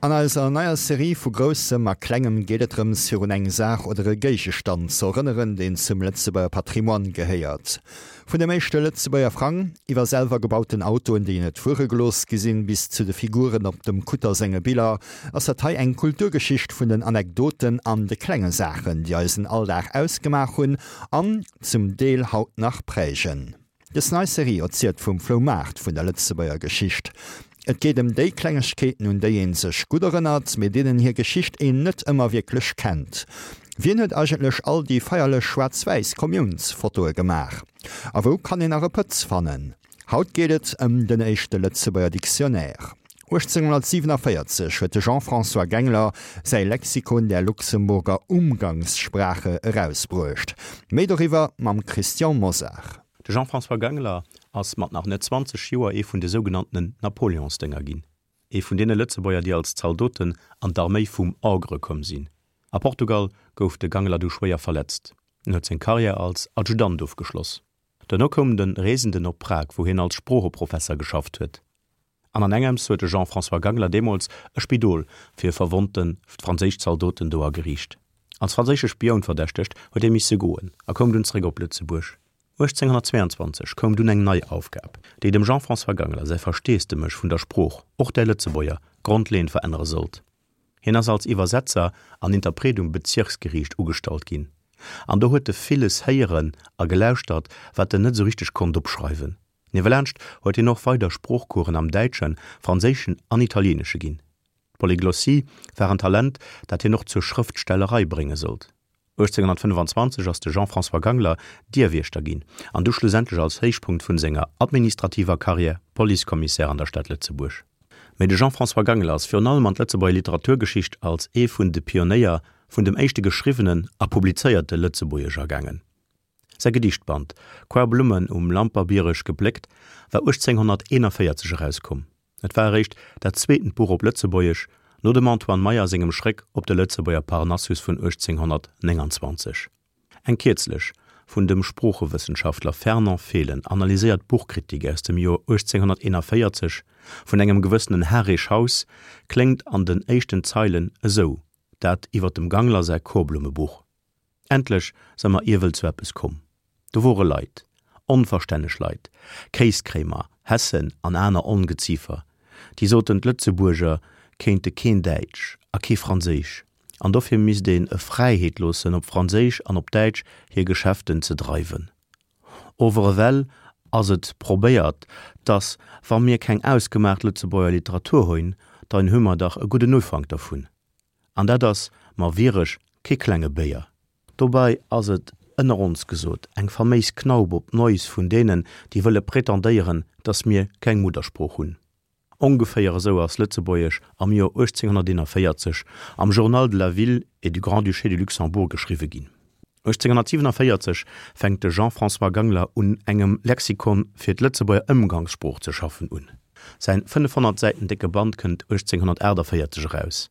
An eiser neier Serie vu Groussem a Klengem geet et drëms, virun eng Saach oder e Géigestand ze erënneren, deen zum Lëtzebuerger Patrimoine gehéiert. Vun dem éischte Lëtzebuerger Frang, iwwer selwer gebauten Autoen, déi net fuere gelooss gi sinn, bis zu de Figuren op dem Kutter senge Biller, ass dat hei eng Kulturgeschicht vun den Anekdoten an de klenge Saachen, déi eisen Alldag ausgemaach hunn an zum Deel haut nach prägen. Dës nei Serie erzielt vum Floumaart vun der Lëtzebuerger Geschicht. Et geet ëm déi Klengegkeeten, un déi een sech gutt erënnert, mee deenen hir Geschicht een net ëmmer wierklech kennt. Wien huet eigentlech all déi feierlech schwaarz-wäiss Kommiounsfotoe gemaach? A wou kann een nach e Pëtz fannen? Haut geet et ëm den éischte Lëtzebuerger Dictionnaire. 1847 huet de Jean-François Gengler säi Lexikon der Luxemburger Umgangssprache erausbruecht. Méi doriwwer mam Christian Mosar. De Jean-François Gangler ass mat nach net 20 Joer ee vun de sougenanntenen Napoleonsdénger ginn, ee vun deene Lëtzebuerger, déi als Zaldoten an d'Arméi vum Ogre komm sinn. A Portugal gouf de Gangler du schwéier verletzt. En huet seng Karriär als Adjutant ofgeschloss. Duerno koum de Reesenden op Prag, wou hien als Sproocheprofesser geschafft huet. An an engems huet de Jean-François Gangler deemools e Spidol fir verwonnte franséisch Zaldoten do ageriicht. Als franséische Spioun verdächtegt, huet hie misse goen a koum dunn zeréck op Lëtzebuerg. 1822 koum dunn eng nei Aufgab, déi dem Jean-François Gangler säi Versteesdemech vun der Sprooch, och där Lëtzebuerger, grondleeënd verännere sollt. Hien ass als Iwwersetzer an Interpret um Bezirksgeriicht ugestallt ginn, an do huet e villes héieren a gelauschtert, wat en net esou richteg konnt opschreiwen. Niewelaanscht huet hien och weider Sproochcoursen am Däitschen, Franséischen an Italieenesche ginn. D'Polyglossie war en Talent, dat hien och zur Schrëftstellerei brénge sollt. 1825 ass de Jean-François Gangler Dierwiechter ginn an du schlussendlech als Héichpunkt vun senger administrativer Karriär Policekommissär an der Stad Lëtzebuerg. Mee de Jean-François Gangler ass virun allem an d'Lëtzebuerger Literaturgeschicht als ee vun de Pionéier vun dem éischte geschriwwenen a publizéierte Lëtzebuergesch agaangen. Säi Gedichtband Koarblummen um Lamperbiereg gepléckt war 1841 erauskomm. Et war eréischt dat zweetent Buch op Lëtzebuergesch, no dem Antoine Meyer sengem Schréck op de Lëtzebuerger Parnassus vun 1829. Eng kierzlech vun dem Sproochewëssenschaftler Fernand Fehlen analyséiert Buchkritik aus dem Joer 1841 vun engem gewëssenen Harry Schaus kléngt an den éischten Zeilen esou, dat iwwer dem Gangler säi Korblumme-Buch. Endlech se mer iewel zu eppes komm. Do wore Leit, onverstänneg Leit, Kéiskréimer, Hessen an aner Ongeziefer, déi soten, d'Lëtzebuerger kéinte keen Däitsch a kee Franséisch, an dofir misst een e Fräiheet loossen, op Franséisch an op Däitsch hir Geschäfte ze dreiwen. Ower ewell ass et probéiert, dass, wa mir keng ausgemaacht Lëtzebuerger Literatur huin, dann hu mer dach e gudden Ufank dervun. An dat ass mer wierech kee klenge Béier. Dobei ass et, ënner ons gesot, eng faméis Knaup op d'Näus vun deenen, déi wëlle prétendéieren, dass mir keng Muddersprooch hunn. Ongeféier esou ass Lëtzebuergesch am Joer 1841 am Journal de la Ville et du Grand-Duché de Luxembourg geschriwwe ginn. 1847 fänkt de Jean-François Gangler un engem Lexikon fir d'Lëtzebuerger Ëmgangssprooch ze schaffen un. Säin 500 Säiten décke Band kënnt 1848 eraus,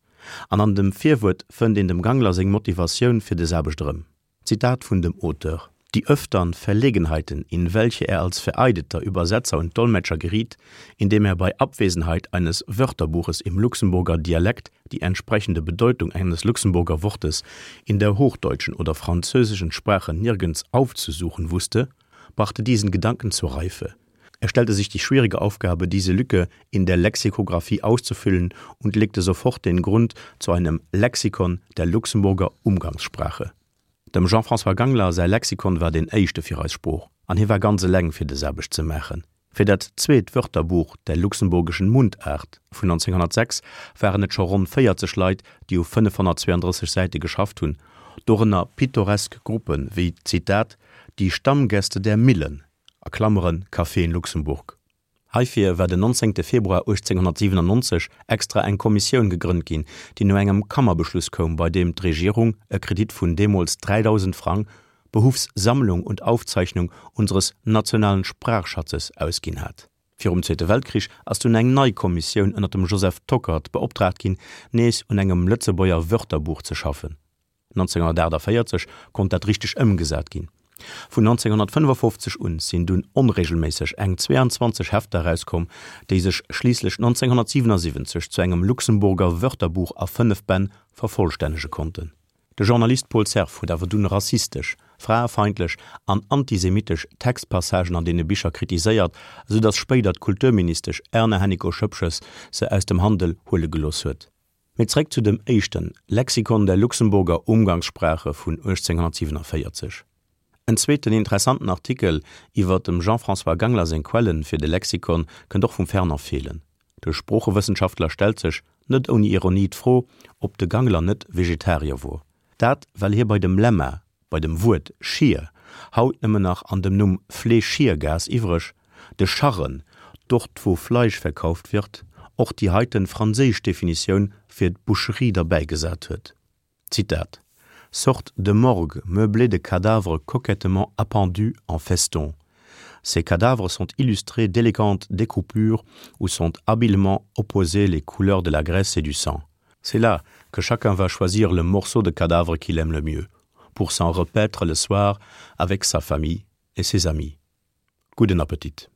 an an dem Virwuert fënnt een dem Gangler seng Motivatioun fir des Aarbecht erëm. Zitat vun dem Auteur, Die öftern Verlegenheiten, in welche er als vereideter Übersetzer und Dolmetscher geriet, indem er bei Abwesenheit eines Wörterbuches im Luxemburger Dialekt die entsprechende Bedeutung eines Luxemburger Wortes in der hochdeutschen oder französischen Sprache nirgends aufzusuchen wusste, brachte diesen Gedanken zur Reife. Er stellte sich die schwierige Aufgabe, diese Lücke in der Lexikographie auszufüllen und legte sofort den Grund zu einem Lexikon der Luxemburger Umgangssprache. Dem Jean-François Gangler säi Lexikon war deen éischte fir eis Sprooch, an hie war ganz eleng fir des Aarbecht ze maachen. Fir dat zweet Wörterbuch der luxemburgischen Mundart vun 1906 waren et scho ronn 40 Leit, déi u 532 Säite geschafft hunn, dorënner pittoresk Gruppe wéi, Zitat, Die Stammgäste der Millen, a Klammeren, Café in Luxemburg. Heifir war den 19. Februar 1897 extra eng Kommissioun gegrënnt ginn, déi no engem Kammerbeschluss koum, bei deem d'Regierung e Kredit vun deemools 3.000 Frang behuffs Sammlung und Aufzeichnung unseres nationalen Sprachschatzes ausginn hat. Virum Zweete Weltkrich ass dunn eng nei Kommissioun ënner dem Joseph Tockert beoptraagt ginn, nees un engem Lëtzebuerger Wörterbuch ze schaffen. 1948 konnt dat richteg ëmgesat ginn. Vun 1955 un sinn dunn onreegelméisseg eng 22 Hefter erauskomm, déi sech schliisslech 1977 zu engem Luxemburger Wörterbuch a 5 Bänn vervollstännege konnten. De Journalist Paul Cerf huet awer dunn rassistesch, fraefeindlech an antisemitesch Textpassagen an deene Bicher kritiséiert, esou datt spéider d'Kulturministesch Erna Hennicot-Schoepges se aus dem Handel huele gelooss huet. Mee zréck zu dem éischten Lexikon der Luxemburger Umgangssprache vun 1847. En zweeten interessanten Artikel iwwer dem Jean-François Gangler seng Quellen fir de Lexikon kënnt och vum Fernand Fehlen. De Sproochewëssenschaftler stellt sech, net ouni Ironie, d'Fro, ob de Gangler net Vegetarier wor. Dat well hie bei dem Lemma bei dem Wuert Schier, haut nëmmen nach an dem Numm Fleeschiergas iwwreg, de Scharren, dort wo Fleisch verkauft wird, och déi heiten franséisch Definitioun fir d'Boucherie derbäigesat huet. Zitat, Sorte de morgue meublée de cadavres coquettement appendus en festons. Ces cadavres sont illustrés d'élégantes découpures où sont habilement opposées les couleurs de la graisse et du sang. C'est là que chacun va choisir le morceau de cadavre qu'il aime le mieux, pour s'en repaître le soir avec sa famille et ses amis. Gudden Appetit!